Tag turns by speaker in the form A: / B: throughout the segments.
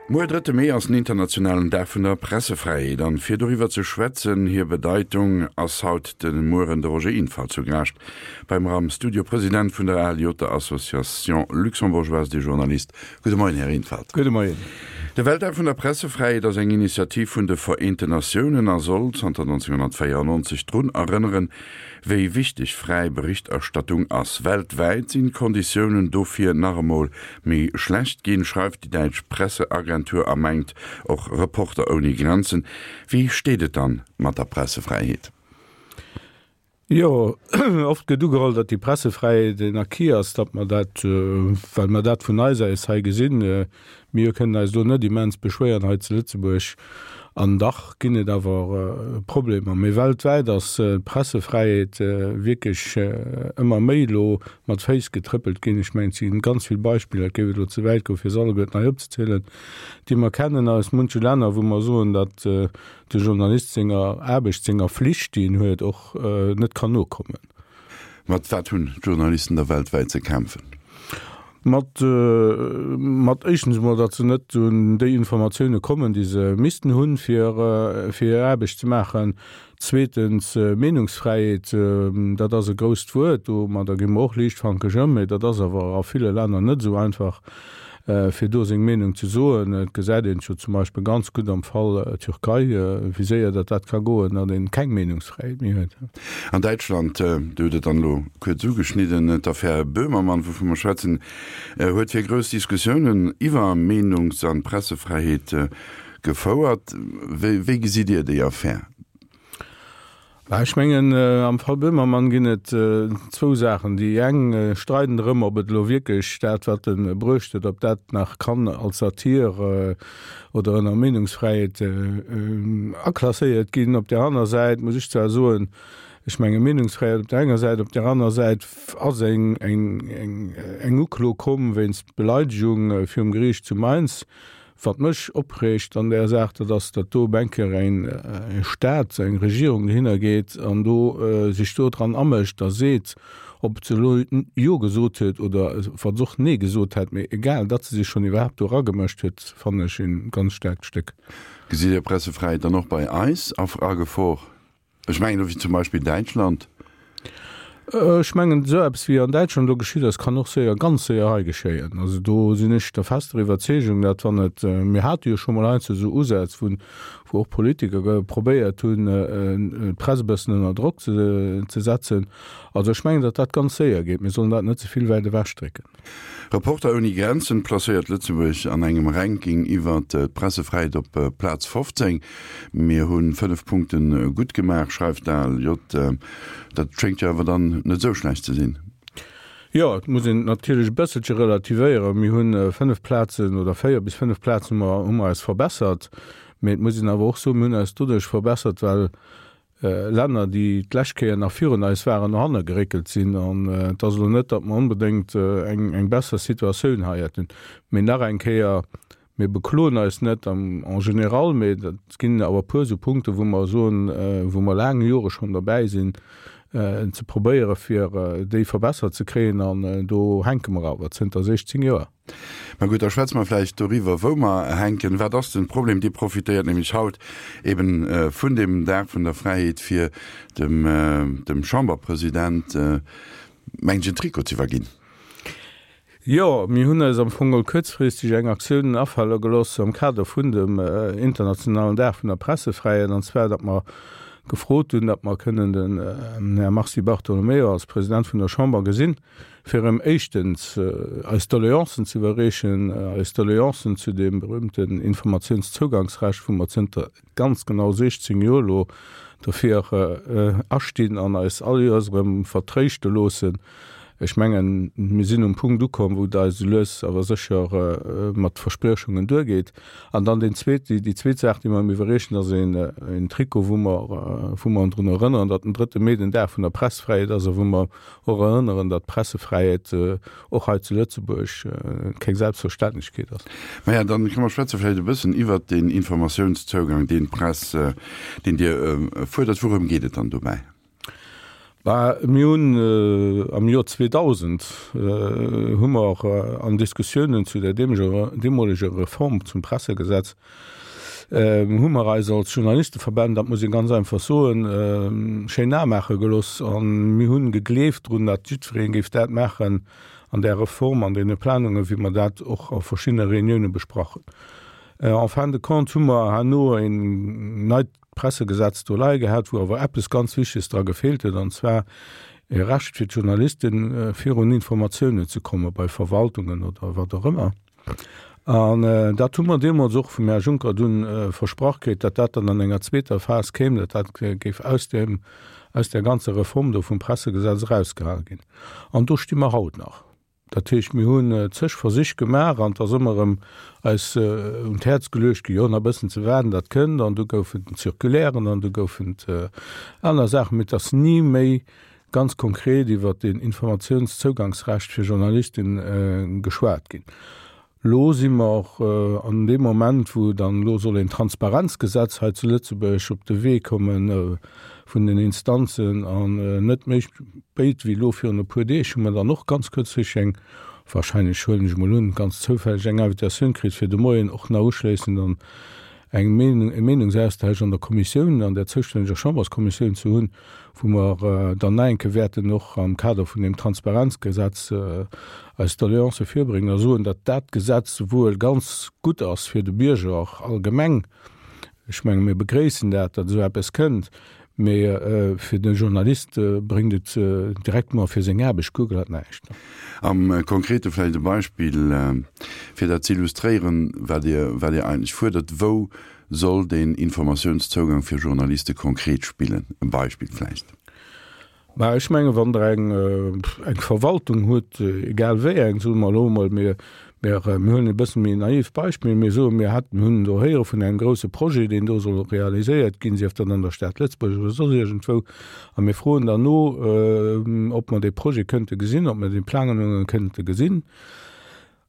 A: Muer, drëtte Mee, ass den internationalen Dag vun der Pressefräiheet. An fir doriwwer ze schwätzen, hir Bedeitung, ass haut de Mueren de Roger Infalt zu Gaascht bei mer am Studio, President vun der ALJ, der Association Luxembourgeoise des Journalistes. Gudde Moien, Här Infalt.
B: Gudde Moien.
A: De Weltdag vun der Pressefräiheet ass eng Initiativ vun de Vereenten Natiounen a soll zanter 1994 drun erënneren, wéi wichteg fräi Berichterstattung ass. Weltwäit sinn d'Konditiounen dofir nach emol méi schlecht ginn, schreift déi däitsch Presseagentur a mengt och Reporter ouni Grenzen. Wéi steet et dann mat der Pressefräiheet?
B: Jo, oft gëtt ugeholl, datt déi Pressefräiheet en Acquis ass, datt mer dat, well mer dat vun eis aus hei gesinn, mir kënnen eis do net immens beschwéieren hei zu Lëtzebuerg. An dach ginn et awer Problemer. Mee weltwäit ass d'Pressefräiheet wierklech ëmmer méi elo mat Féiss getrëppelt ginn. Ech mengen, et si ganz vill Beispiller, et géif elo ze wäit goen, fir se alleguerten hei opzezielen, déi mer kennen aus munche Länner, wou mer soen, datt de Journalist senger Aarbecht, senger Flicht, déi en huet, och net kann nokommen.
A: Mat wat hunn d'Journalisten da weltwäit ze kämpfen?
B: Mat, mat éischtens emol, datt se net un déi Informatioune kommen, déi se missten hunn, fir, fir hir Aarbecht ze maachen. Zweetens, Meenungsfräiheet, dat ass e grousst Wuert, domadder gi mer och liichtfankeg ëm, mee dat ass awer a ville Länner net esou einfach. fir do seng Meenung ze soen. Et gesäit een et jo zum Beispill ganz gutt am Fall Türkei, wéi séier datt dat ka goen, datt een keng Meenungsfräiheet méi huet.
A: An Däitschland, Dir hutt et dann elo kuerz ugeschnidden, d'Affär Böhmermann, wouvu mer schwätzen, huet fir grouss Diskussiounen iwwer Meenungs an Pressefräiheet gefouert. Wéi gesitt Dir déi Affär?
B: Ech mengen, am Fall Böhmermann ginn et zwou Saachen. Déi eng streiden drëm, ob et elo wierklech dat, wat e bruecht huet, ob dat nach kann als Satir oder ënner Meenungsfräiheet aklasséiert ginn. Op där aner Säit muss ech zwar soen, ech menge Meenungsfräiheet op där enger Säit, op där aner Säit ass eng Uklo komm wéinst Beleidegung virum Geriicht zu Mainz, Wat mech opreegt an där Saach, dat ass, datt do op eng Kéier e Staat, eng Regierung dohinner geet an do sech do dran amëscht a seet, ob se elo Jo gesot huet oder wa se och Nee gesot hätt, mee egal, datt se sech schonn iwwerhaapt do eragemëscht huet, fannen ech e ganz staarkt Stéck.
A: Gesitt Dir Pressefräiheet dann och bei eis a Gefor? Ech mengen elo wéi zum Beispill Däitschland.
B: Ech mengen, esou eppes wéi an Däitschland elo geschitt ass, kann och séier, ganz séier hei geschéien. Also do sinn ech der fester Iwwerzeegung, datt wann et, mir hate jo scho mol heiansdo esou Usätz, wou wou och Politiker probéiert hunn, d'Press e bëssen ënner Drock ze setzen. Also ech mengen, datt dat ganz séier geet. Mir sollen dat net ze vill wäit ewechdrécken.
A: Reporter ouni Grenzen placéiert Lëtzebuerg an engem Ranking iwwert d'Pressefräiheet op Plaz 15. Mir hu 5 Punkte gutt gemaach, schreift d'ALJ. Dat schéngt jo awer dann net esou schlecht ze sinn.
B: Jo, et muss een et natierlech e bësselche relativéieren. Mir hu 5 Plazen oder 4 bis 5 Plazen hu mer eis verbessert. Mee et muss een awer och soen, mir hunn eis doduerch verbessert, well Länner, déi d'lescht Kéier nach virun eis waren, no hanne geréckelt sinn. An et ass elo net, datt mer onbedéngt eng besser Situatioun hei hätten. Mee nach eng Kéier, Mir bekloen eis net en général, mee et ginn awer e puer esou Punkten, wou mer soen, wou mer laang Jore schonn derbäi sinn, ze probéieren, fir déi verbessert ze kréien. An do hänke mer awer zënter 16 Joer.
A: Ma gutt, da schwätze mer vläicht doriwwer, wou mer hänken. Wat ass den Problem? Dir profitéiert nämlech haut eben vun deem Dag vun der Fräiheet, fir dem, dem Chamberpresident, mengen ech, en Trikot ze iwwerginn.
B: Jo, mir hunn eis am Fong geholl kuerzfristeg eng Aktioun afale gelooss am Kader vun dem internationalen Dag vun der Pressefräiheet, an zwar datt mer gefrot hunn, datt mer kënnen den Här Mars Di Bartolomeo als President vun der Chamber gesinn, fir erëm éischtens eis Doleancen ze iwwerreechen, eis Doleancen zu deem berühmten Informatiounszougangsrecht, wou mer zënter ganz genau 16 Joer elo dofir astinn an eis all Joers erëm vertréischte loossen. Ech mengen, mir sinn um Punkt ukomm, wou et eis esou lues awer sécher mat Verspriechungen duergeet. An dann deen zweet, déi zweet Saach, déi mer ëm iwwerreechen, ass een Trikot, wou mer, wou mer drun erënneren, datt den drëtte Mee den Dag vun der Pressfräiheet ass a wou mer och erënneren, datt d'Pressefräiheet och hei zu Lëtzebuerg keng Selbstverständlechkeet ass.
A: Maja, dann kënne mer schwätze vläicht e bëssen iwwert deen Informatiounszougang, deen d'Press, deen Dir fuerdert. Wourëm geet et dann dobäi?
B: Bah, mir hunn am Joer 2000 hu mer an Diskussiounen zu der deemoleger Reform zum Pressegesetz, hu mer eis als Journalisteverbänn, dat muss ee ganz einfach soen, schéin Ae maache gelooss a mir hunn gegleeft drun, datt jiddweree géif dat maachen an där Reform, an deene Planungen, wéi mer dat och a verschiddene Reunioune besprach hunn. En fin de compte hu mer herno een neit Pressegesetz do leie gehat, wou awer eppes ganz Wichteges dra gefeelt huet, an zwar e Recht fir d'Journalisten, virun Informatiounen ze komme bei Verwaltungen oder wat och ëmmer. An dat hu mer deemools och vum Här Juncker dunn versprach kritt, datt dat dann an enger zweeter Phas kéim, datt dat géif aus deem, aus där ganzer Reform do vum Pressegesetz erausgehale ginn. An do sti mer haut nach. Dat heescht, mir hunn zeg Versich gemaach an et ass ëmmer erëm eis un d'Häerz geluecht ginn, jo, nach e bëssen ze waarden, dat kënnt. An du goufen et Circulairen an du goufen et aner Saachen, mee et ass ni méi ganz konkret iwwert deen Informatiounszougangsrecht fir Journalisten geschwat ginn. Elo si mer an deem Moment, wou dann elo soll een Transparenzgesetz hei zu Lëtzebuerg op de Wee komme vun den Instanzen, an net méi spéit wéi elo virun e puer Deeg hu mer dann och ganz kuerzfristeg eng, wahrscheinlech huelen ech emol un, ganz zoufälleg eng Invitatioun kritt, fir de Moien och nach uschléissend an eng Meenung, e Meenungsaustausch an der Kommissioun, an der zoustänneger Chamberskommissioun ze hunn, wou mer dann nach eng Kéier wäerten och am Kader vun deem Transparenzgesetz eis Doleancë virbréngen a soen, datt dat Gesetz wuel ganz gutt ass fir de Bierger allgemeng, ech menge mir begréissen dat, datt esou eppes kënnt, mee fir de Journalist bréngt et directement fir seng Aarbecht guer glat näischt.
A: Am Konkrete vläicht e Beispill, fir dat ze illustréieren, wat Dir, wat Dir eigentlech fuerdert. Wou soll deen Informatiounszougang fir Journaliste konkret spillen? E Beispill vläicht.
B: Mä ech mengen, wann Der eng, eng Verwaltung hutt, egal wéi eng, soe mer elo emol, mir, mir, mir huelen e bësse méi naiv Beispill, mir soen, mir hätten, hunn do héiere vun engem grouse Projet, deen do soll realiséiert ginn, sief dat an der Stad Lëtzebuerg oder soss iergendwou, a mir froen dann no, ob mer dee Projet kënnte gesinn, ob mer déi Planungen kënnte gesinn.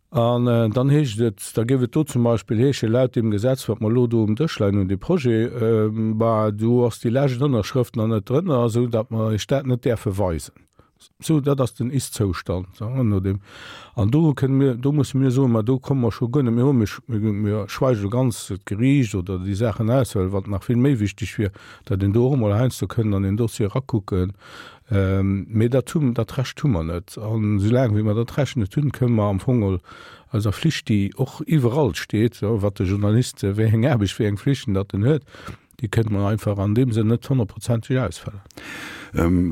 B: An dann heescht et, da géif et do zum Beispill heeschen, laut deem Gesetz, wat mer elo do um Dësch leien hunn, dee Projet, bah, do ass déi lescht Ënnerschrëft nach net drënner, esou datt mer Iech dat net däerfe weisen. Sou, dat ass den Ist-Zoustand, no deem. An do kënne mir, do musse mir soen, ma do komme mer scho guer net méi un, mir, mir schweige elo ganz d'Geriicht oder déi Saachen aus, well wat nach vill méi wichteg wier, datt een do och emol heiansdo kënnt an een Dossier erakucken, Mee dat hu, dat Recht hu mer net. An esoulaang wéi mer dat Recht net hunn, kënnen mer am Fong geholl eiser Flicht, déi och iwwerall steet, wat de Journalist, wéi eng Aarbecht, wéi eng Flichten datt en huet, déi kënnen mer einfach an deem Sënn net honnertprozenteg ausfëllen.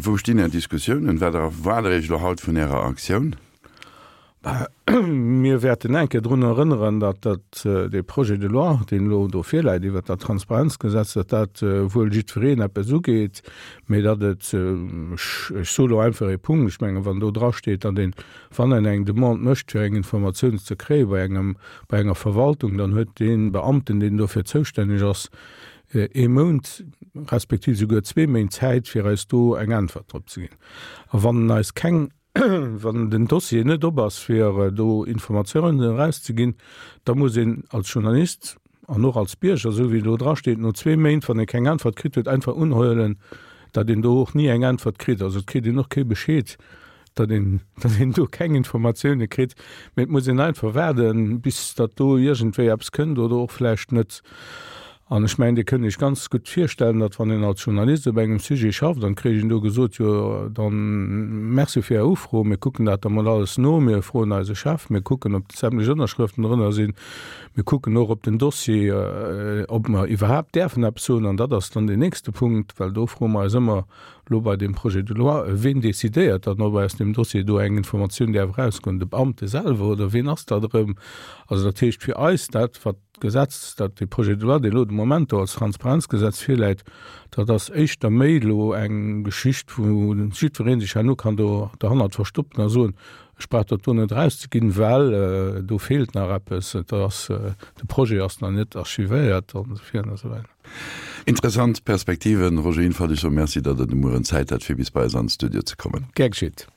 A: Wou stinn Är Diskussiounen? Wat erwaart Der Iech elo haut vun Ärer Aktioun?
B: Mir wäerten eng Kéier drun erënneren, datt dat, dee Projet de loi, deen elo do virläit iwwert dat Transparenzgesetz, datt dat wuel jiddwereen eppes ugeet, mee datt et, ech soe lo einfach ee Punkt, ech mengen, wann do drasteet, datt een, wann een eng Demande mécht, fir eng Informatioun ze kréie bei engem, bei enger Verwaltung, dann huet dee Beamten, deen dofir zoustänneg ass, ee Mount respektiv souguer zwee Méint Zäit, fir eis do eng Äntwert drop ze ginn. A wann en eis keng Wann den Dossier net op ass, fir do Informatiounen erauszeginn, da muss een als Journalist an och als Bierger, esou wéi et elo drasteet, no zwee Méint, wann ee keng Äntwert kritt huet, einfach unhuelen, datt een do och ni eng Äntwert kritt. Also et kritt een och kee Bescheed, datt een, datt een do keng Informatioune kritt, mee et muss een einfach waarden, bis datt do iergendwéi eppes kënnt oder och vläicht net. An ech mengen, Dir kënnt Iech ganz gutt virstellen, datt wann een als Journalist op engem Sujet schafft an et kréich een do gesot, jo dann Merci fir Är Ufro, mir kucken dat da mol alles no, mir froen eise Chef, mir kucken ob sämtlech Ënnerschrëften drënner sinn, mir kucken och op den Dossier, ob mer iwwerhaapt däerfen eppes soen. An dat ass dann deen nächste Punkt, well do froe mer eis ëmmer elo bei deem Projet de loi, ween decidéiert dann, ob aus deem Dossier do eng Informatioun däerf erausgoen, de Beamte selwer oder ween ass dat erëm? Also dat heescht fir eis dat, wat D'Gesetz, dat, dee Projet de loi, deen elo de Moment do als Transparenzgesetz virläit, dat ass éischter méi elo eng Geschicht, wou jiddweree sech herno kann do derhannert verstoppen a soen, ech brauch dat do net erauszeginn, well do feelt nach eppes, et ass, de Projet ass nach net archivéiert an esou virun a sou weider.
A: Interessant Perspektiven, Roger Infalt. Ech soe Merci, datt Der de Mueren Zäit hat, fir bis bei eis an de Studio ze kommen.
B: Gär geschitt.